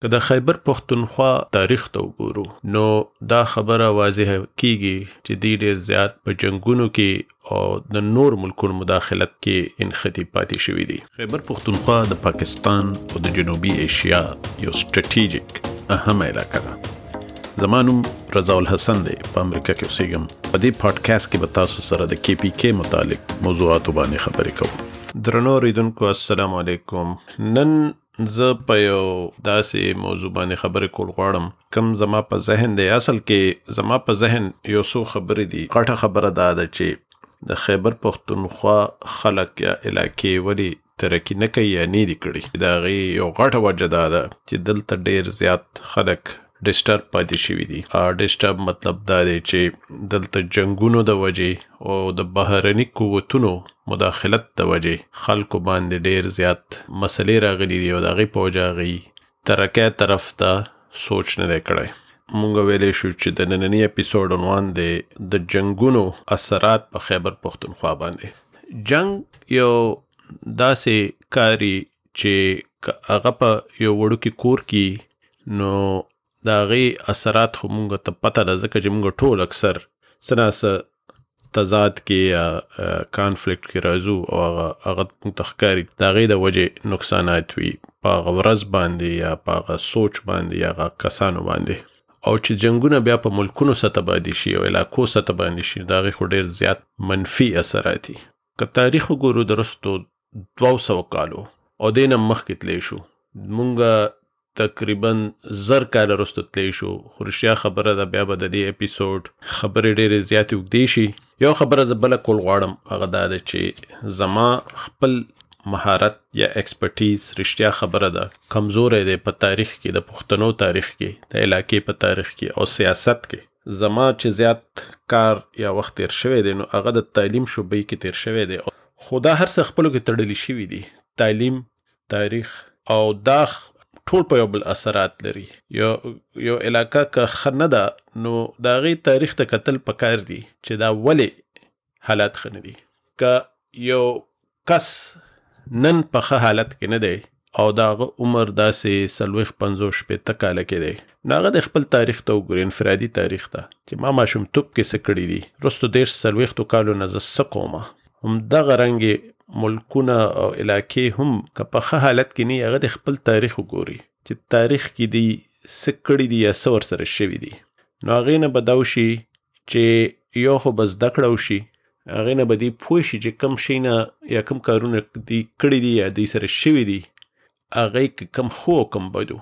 که د خیبر پښتونخوا تاریخ ته وګورو نو دا خبره واضحه کیږي چې دی ډیر زیات په جنگونو کې او د نور ملکونو مداخلت کې انختی پاتې شوی دی. خیبر پښتونخوا د پاکستان او د جنوبي ایشیا یو سټریټیجیک اهم علاقه ده. زمانم رضا الحسن دی، په امریکا کې اوسېږم. په دې پادکاسټ کې به تاسو سره د KPK متعلق موضوعاتو باندې خبرې کوم. درنو اوریدونکو السلام علیکم. نن زه په یو داسې موضوع باندې خبرې کول غواړم کوم زما په ذهن دی. اصل کې زما په ذهن یو څو خبرې دي. غټه خبره دا ده چې د خیبر پښتونخوا خلک یا علاقې ولې ترقي نه کوي یا نه دي کړي. د هغې یو غټه وجه دا ده چې دلته ډیر زیات خلک ډسټرب پاتې شوي دي. ډسټرب مطلب دا دی چې دلته جنگونو د وجې او د بهرني قوتونو مداخلت د وجې خلکو باندې ډیر زیات مسلې راغلي دي او د هغې په وجه هغې ترقۍ طرف ته سوچ نه دی کړی. مونږ ویلی شو چې د ننني اپیسوډ عنوان دی د جنگونو اثرات په خیبر پښتونخوا باندې. جنگ یو داسې کاري چې هغه په یو وړوکي کور کې نو د هغې اثرات خو مونږ ته پته ده ځکه چې مونږ ټول اکثر څه نه څه تضاد کې یا کانفلیکټ کې راځو او هغه مونږ ته ښکاري د هغې د وجې نقصانات وي په هغه ورځ باندې یا په هغه سوچ باندې یا هغه کسانو باندې. او چې جنګونه بیا په ملکونو سطح باندې شي او علاقو سطح باندې شي د هغې خو ډېر زیات منفي اثرات دي. که تاریخ وګورو د رستو 200 کالو او دې نه مخکې تلی شو مونږ تقریبا 1000 کاله وروسته تلی شو. خو رښتیا خبره ده بیا به د دې اپیسوډ خبرې ډېرې زیاتې اوږدې شي. یو خبره زه بله کول غواړم هغه دا ده چې زما خپل مهارت یا ایکسپرټیز رښتیا خبره ده کمزوری دی په تاریخ کې، د پښتنو تاریخ کې، د علاقې په تاریخ کې او سیاست کې. زما چې زیات کار یا وخت تیر شوی دی نو هغه د تعلیم شعبې کې تیر شوی دی. خو دا هر څه خپلو کې تړلي شوي دي، تعلیم، تاریخ او دا ټول په یو بل اثرات لري. یو علاقه که ښه نه ده نو د هغې تاریخ ته کتل پکار دي چې دا ولې حالات ښه نه دي. که یو کس نن په ښه حالت کې نه دی او د هغه عمر داسې 40-50 کاله کې دی نو هغه د خپل تاریخ ته وګوري، انفرادي تاریخ ته چې ما ماشومتوب کې څه کړي دي، وروستو 30-40 کالو نه زه څه کومه. همدغه رنګې ملکونه او علاقې هم که په ښه حالت کې نه هغه د خپل تاریخ وګوري چې تاریخ کې دي څه کړي دي یا څه ورسره شوي دي. نو هغې نه به دا وشي چې یو خو به زده کړه وشي، هغې نه به دی پوه شي چې کوم شي نه یا کوم کارونه دی کړي دي یا دی سره شوي دي هغې که کوم ښو او کوم بدو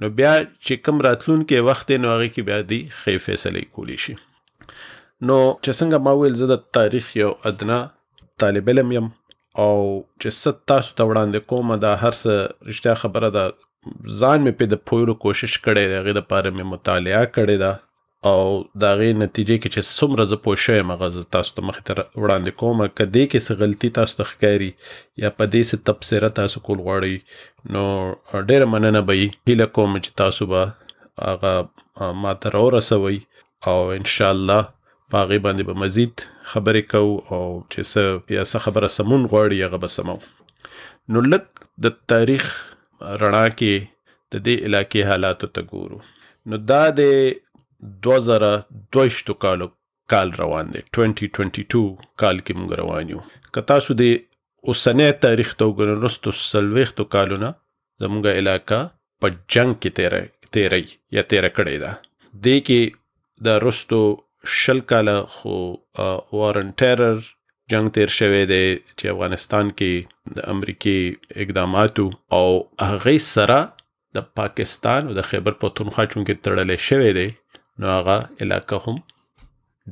نو بیا چې کوم راتلونکی وخت دی نو هغې کې بیا دی ښې فیصلې کولی شي. نو چې څنګه ما ویل زه د تاریخ یو ادنا طالب علم یم او چې څه تاسو ته وړاندې کومه دا هر څه رښتیا خبره ده ځان مې پرې د پوهیلو کوشش کړی دی، هغې دپاره مې مطالعه کړې ده او د هغې نتیجې کې چې څومره زه پوه شوی یم هغه زه تاسو ته مخې ته وړاندې کومه. که دې کې څه غلطي تاسو ته ښکاري یا په دې څه تبصره تاسو کول غواړئ نو ډېره مننه به وي. هیله کوم چې تاسو به هغه ما ته راورسوئ او انشاءالله په هغې باندې به مزید خبرې کوو او چې څه یا څه خبره سمون غواړي هغه به سمو. نو لږ د تاریخ رڼا کې د دې علاقې حالاتو ته ګورو. نو دا د 2022 کال روان دی، 2022 کال کې مونږ روان یو. که تاسو د اوسنی تاریخ ته وګورئ وروستو 40 کالو نه زموږ علاقه په جنګ کې تیری یا تیره کړې ده. دې کې د وروستو 20 کاله خو وارن ټیرر جنگ تیر شوی دی چې افغانستان کې د امریکې اقداماتو او هغې سره د پاکستان او د خیبر پښتونخوا چونکې تړلی شوی دی نو هغه علاقه هم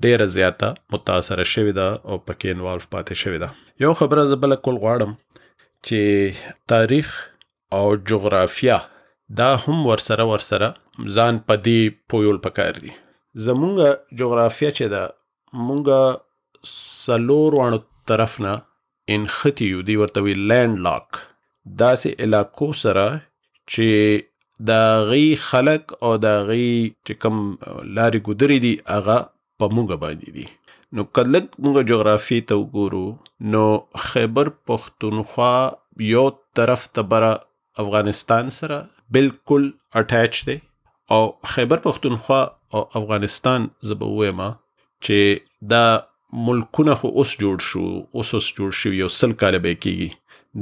ډیره زیاته متاثره شوې ده او پکې انوالو پاتې شوې ده. یو خبره زه بله کول غواړم چې تاریخ او جغرافیه دا هم ورسره ځان په دې پویول پکار دي. زمونږ جغرافیه چې ده مونږ 4 طرف نه انختی یو، دی ورته وی لینډ لاک، داسې علاقو سره چې د هغې خلک او د هغې چې کوم لارې ګودرې دي هغه په مونږ باندې دي. نو که لږ مونږ جغرافي ته وګورو نو خیبر پښتونخوا یو طرف ته بره افغانستان سره، بالکل اٹیچ دی او خیبر پختونخوا او افغانستان زبه وایم چې دا ملکونه خو اوس جوړ شو یو 100 کاله به کېږي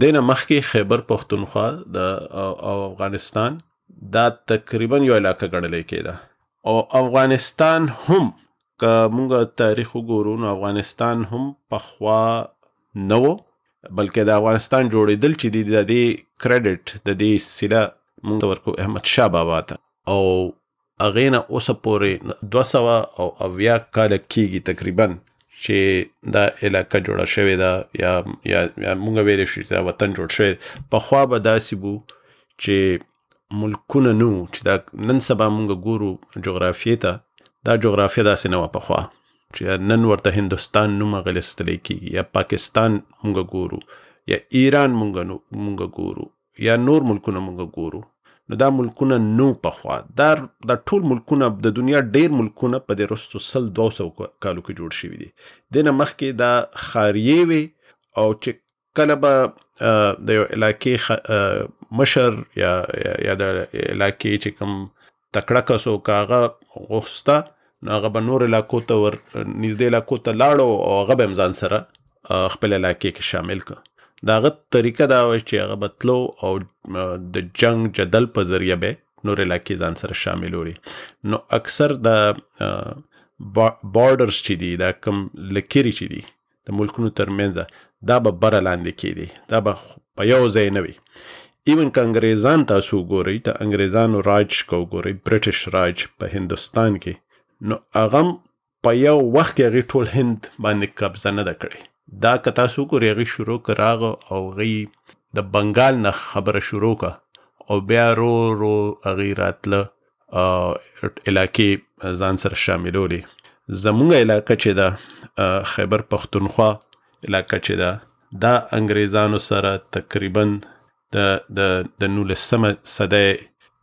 دینه مخکې خیبر پختونخوا او افغانستان دا تقریبا یو علاقه ګڼل کېده او افغانستان هم که مونږ تاریخ وګورو نو افغانستان هم پخوا نه و بلکې د افغانستان جوړېدل چې د دې کریډټ د دې سیله مونږ ورکو احمد شاه بابا ته او هغې نه اوسه پورې 280 کاله کېږي تقریبا چې دا علاقه جوړه شوې ده یا مونږ ویلی شو چې دا وطن جوړ شوی پخوا به داسې بو چې ملکونه نو چې دا نن سبا مونږ ګورو جغرافیې ته دا جغرافیه داسې نه وه پخوا چې نن ورته هندوستان نوم اغلستلی کېږي یا پاکستان مونږ ګورو یا ایران مونږ ګورو یا نور ملکونه مونږ ګورو نو دا ملکونه نو پخوا دا ټول ملکونه د دنیا ډیر ملکونه په دې رستو 200 کالو کې جوړ شوي دي دینه مخکې دا خاریې وي او چې کله به د یو علاقې مشر یا د علاقې چې کوم تکړه کس و که هغه غوښته نو هغه به نور علاقو ته نږدې علاقو ته لاړو او هغه به هم ځان سره خپل علاقې کې شامل کړه د هغه طریقه دا وه چې هغه به تلو او د جنگ جدل په ذریعه به نور علاقې ځان سره شاملوي نو اکثر د بارډرز چې دي دا کوم لکیري چې دي د ملکونو ترمنځ دا به بره لاندې کېدي دا به په یو ځای نه وي ایون که انګریزان تاسو وګورئ ته انګریزانو راج که وګورئ برټش راج په هندوستان کې نو هغه په یو وخت کې هغې ټول هند باندې قبضه نه ده کړې دا که تاسو وګورئ هغې شروع که راغه او هغې د بنګال نه خبره شروع که او بیا رو هغې راتله علاقې ځان سره شاملولې زمونږ علاقه چې ده خیبر پختونخوا علاقه چې ده دا انګریزانو سره تقریبا د 19 صدۍ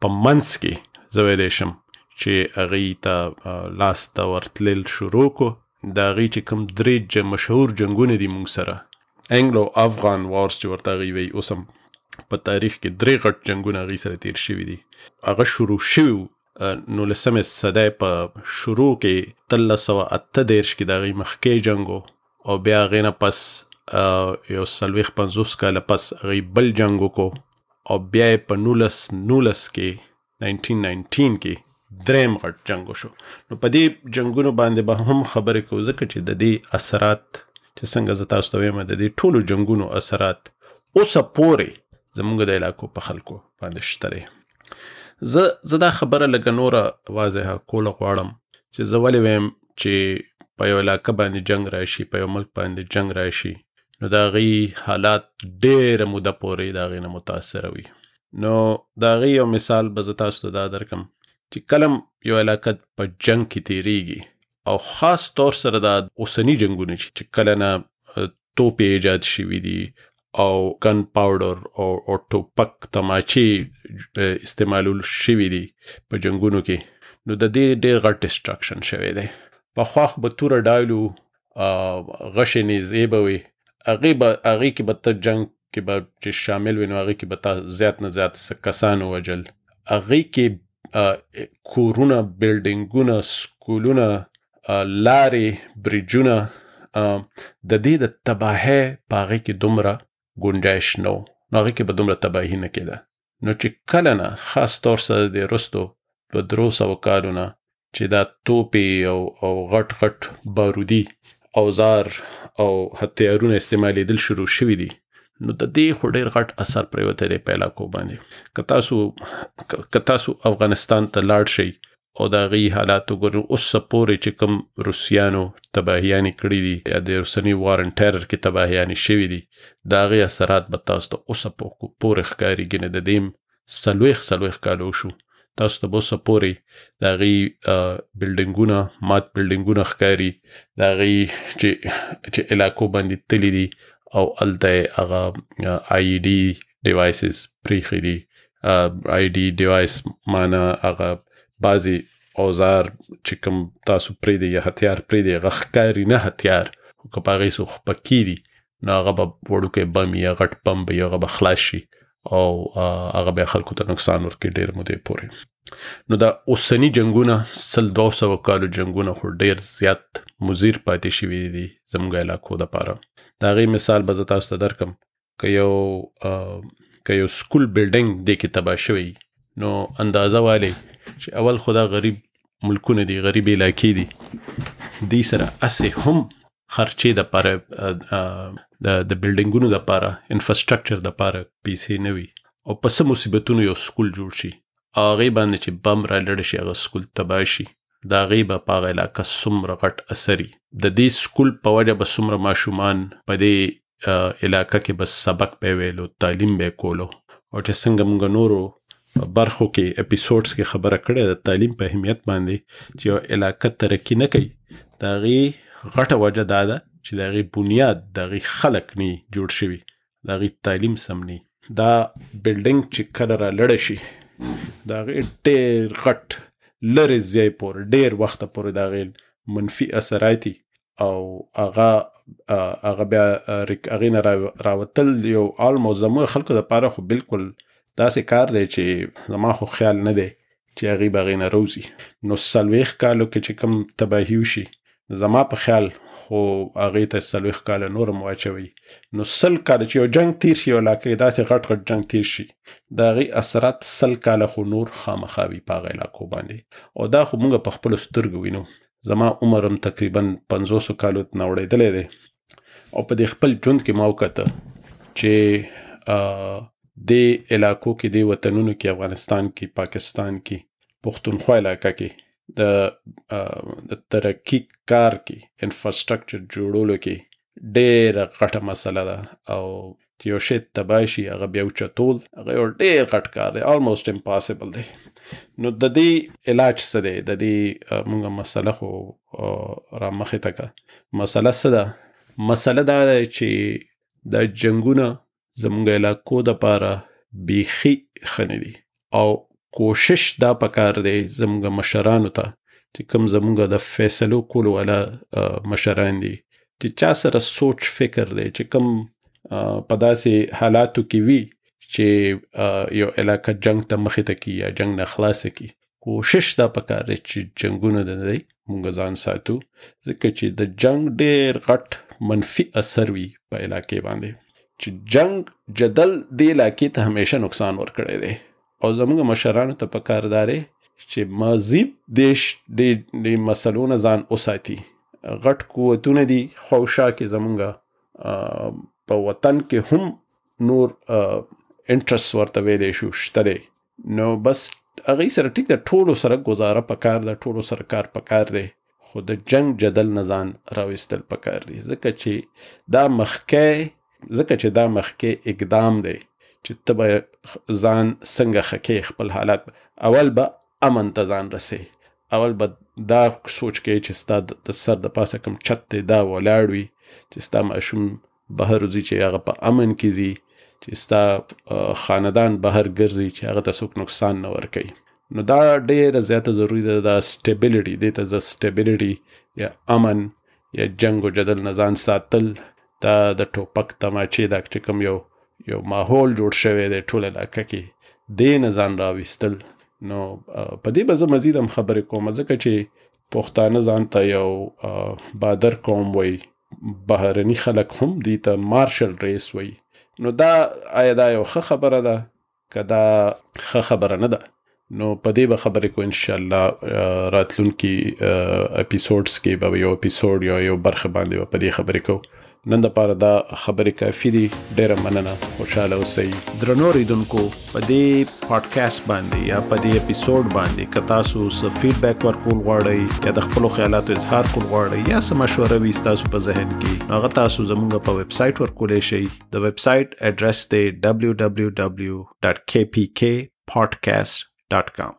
په منځ کې زه ویلی شم چې هغې ته لاس ته ورتلل شروع کو د هغې چې کوم 3 مشهور جنګونه دي مونږ سره انګلو افغان وارز چې ورته هغې وایي اوس هم په تاریخ کې 3 غټ جنګونه هغې سره تیر شوي دي هغه شروع شوي 19 صدۍ په شروع کې 1338 کې د هغې مخکې جنګ او بیا هغې نه پس یو 40-50 کاله پس هغې بل جنګ وکړو او بیا یې په 1919 کې 1919 کې دریم غټ جنګ وشو نو په دې جنګونو باندې به هم خبرې کوو ځکه چې د دې اثرات چې څنګه زه تاسو ته وایم د دې ټولو جنګونو اثرات اوسه پورې زموږ د علاقو په خلکو باندې شته دی زه دا خبره لږه نوره واضحه کوله غواړم چې زه ولې وایم چې په یو علاقه باندې جنګ راشي په یو ملک باندې جنګ راشي نو د هغې حالات ډېره موده پورې د هغې نه متاثره وي نو د هغې یو مثال به زه تاسو ته دا درکم چې کلم یو علاقه په جنگ کې تیریږي او خاص طور سره دا اوسنی جنگونه چې کله نه توپې ایجاد شوي دي او ګن پاوډر او ټوپک تماچې استعمالول شوي دي په جنگونو کې نو د دې ډېر غټ ډسټرکشن شوی دی پخوا خو به توره ډایلو غشې نیزې به وي هغې کې به ته جنگ کې به چې شامل وي نو هغې کې به تا زیات نه زیات کسان ووژل هغې کې کورونه بلډینګونه سکولونه لارې بریجونه د دې د تباهۍ په هغې کې دومره ګنجایش نه و نو هغې کې به دومره تباهي نه کېده نو چې کله نه خاص طور سره د رستو په 300 کالو نه چې دا توپې او غټ غټ بارودي اوزار او هتیارونه استعمالېدل شروع شوي دي نو د دې خو ډېر غټ اثر پرېوتی دی په علاقو باندې که تاسو افغانستان ته لاړ شئ او د هغې حالات وګورئ اوسه پورې چې کوم روسیانو تباهیانې کړي دي یا د اوسني وار ان ټیرر کې تباهیانې شوي دي د هغې اثرات به تاسو ته اوسه پورې ښکارېږي نه د دې 40 کالو شو تاسو ته به اوسه پورې د هغې بلډینګونه مات بلډینګونه ښکاري د هغې چې علاقو باندې تلي دي او هلته یې هغه آی ډي ډیوایسز پرېښي دي آی ډي ډیوایس معنا هغه بعضې اوزار چې کوم تاسو پرېږدئ یا هتیار پرېږدئ هغه ښکاري نه هتیار خو که په هغې څه خپکي دي نو هغه به وړوکی بم یا غټ بم به هغه به خلاص شي او هغه به خلکو ته نقصان ورکړي ډېر مودې پورې. نو دا اوسنی جنگونه 200 کالو جنگونه خو ډېر زیات مضر پاتې شوي دي زموږ علاقو دپاره. د هغې مثال به زه تاسو ته درکم. که یو سکول بلډینګ دې کې تباه شوی نو اندازه والی چې اول خو دا غریب ملکونه دي، غریب علاقې دي، دې سره اسې هم خرچې دپاره د بلډینګونو دپاره انفراسټرکچر دپاره پیسې نه وي او په څه مصیبتونو یو سکول جوړ شي، هغې باندې چې بم را لړ شي هغه سکول تباه شي، د هغې به په هغه علاقه څومره غټ اثر وي. د دې سکول په وجه به څومره ماشومان په دې علاقه کې به سبق به ویلو، تعلیم به کولو. او چې څنګه موږ نورو برخو کې اپیسوډز کې خبره کړې د تعلیم په اهمیت باندې چې یو علاقه ترقي نه کوي، د هغې غټه وجه دا ده چې د هغې بنیاد د هغې خلک نه جوړ شوي، د هغې تعلیم سم نه. دا بلډینګ چې کله را لړه شي د هغې ډېر غټ لرې ځای پورې ډېر وخته پورې د هغې منفي اثرات او هغه بیا هغې نه راوتل یو آلموست زموږ خلکو دپاره خو بالکل داسې کار دی چې زما خو خیال نه دی چې هغې به هغې نه روزي. نو 40 کالو کې چې کوم تباهي وشي زما په خیال خو هغې ته 40 کاله نور هم واچوي. نو 100 کاله چې یو جنگ تیر شي، یو علاقه داسې غټ جنگ تیر شي، د هغې اثرات 100 کاله خو نور خامخا وي په هغه علاقو باندې. او دا خو موږ په خپلو سترګو وینو. زما عمر هم تقریبا 500 کالو نه وړېدلی دی او په دې خپل ژوند کې ما وکته چې دې علاقو کې، دې وطنونو کې، افغانستان کې، پاکستان کې، پښتونخوا علاقه کې د ترقی کار کې انفراسټرکچر جوړولو کې ډېره غټه مسله ده. او چې یو شی تباه شي هغه بیا اوچتول هغه یو ډېر غټ کار دی، آلموست امپاسبل دی. نو د دې علاج څه دی؟ د دې موږ مسله خو را مخې ته کړه. مسله څه ده؟ مسله دا ده چې دا جنګونه زموږ علاقو دپاره بیخي ښه نه دي او کوشش دا پکار دی زموږ مشرانو ته چې کوم زموږ د فیصلو کولو والا مشران دي چې چا سره سوچ فکر دی چې کوم په داسې حالاتو کې وي چې یو علاقه جنگ ته مخې ته کی یا جنگ نه خلاصه کی، کوشش دا پکار دی چې جنگونه د دی موږ ځان ساتو، ځکه چې د جنگ ډېر غټ منفي اثر وي په علاقې باندې. چې جنگ جدل دې علاقې ته همیشه نقصان ورکړی دی او زموږ مشرانو ته پکار دی چې مزید د مسلو نه ځان وساتي. غټ قوتونه دي خوشا کې زموږ په وطن کې هم نور انټرست ورته ویلی شو شته دی. نو بس هغې سره ټیک د ټولو سره گزاره پکار ده، ټولو سره کار پکار دی، خو د جنگ جدل نه ځان راویستل پکار دی. ځکه چې دا مخکې اقدام دی چې ته به ځان څنګه خکې خپل حالات. اول به امن ته ځان رسې، اول به دا سوچ کوي چې ستا د سر د پاسه کوم چت دی دا ولاړ وي، چې ستا ماشوم بهر وځي چې هغه په امن کې ځي، چې ستا خاندان بهر ګرځي چې هغه ته څوک نقصان نه ورکوي. نو دا ډېره زیاته ضروري ده. دا سټیبلیټي دې ته زه سټیبلیټي یا امن یا جنگ و جدل نه ځان ساتل، دا د ټوپک تماچې دا چې کوم یو ماحول جوړ شوی دی ټول علاقه کې، دې نه ځان راویستل. نو په دې به زه مزید هم خبرې کوم، ځکه چې پښتانه ځان ته یو بادر قوم وایي، بهرني خلک هم دې ته مارشل ریس وایي. نو دا آیا دا یو ښه خبره ده که دا ښه خبره نه ده؟ نو په دې به خبرې کو انشاءالله راتلونکي اپیسوډز کې به یو اپیسوډ یا یو برخه باندې به په دې خبرې کو. نن دپاره دا خبرې کافي دي. ډېره مننه، خوشحاله اوسئ. درنو اورېدونکو، په دې پاډکاسټ باندې یا په دې اپیسوډ باندې که تاسو څه فیډبیک ورکول غواړئ یا د خپلو خیالاتو اظهار کول غواړئ یا څه مشوره وي ستاسو په ذهن کې، هغه تاسو زموږ په ویب سایټ ورکولی شئ. د ویب سایټ اډرس دی www.kpkpodcast.com.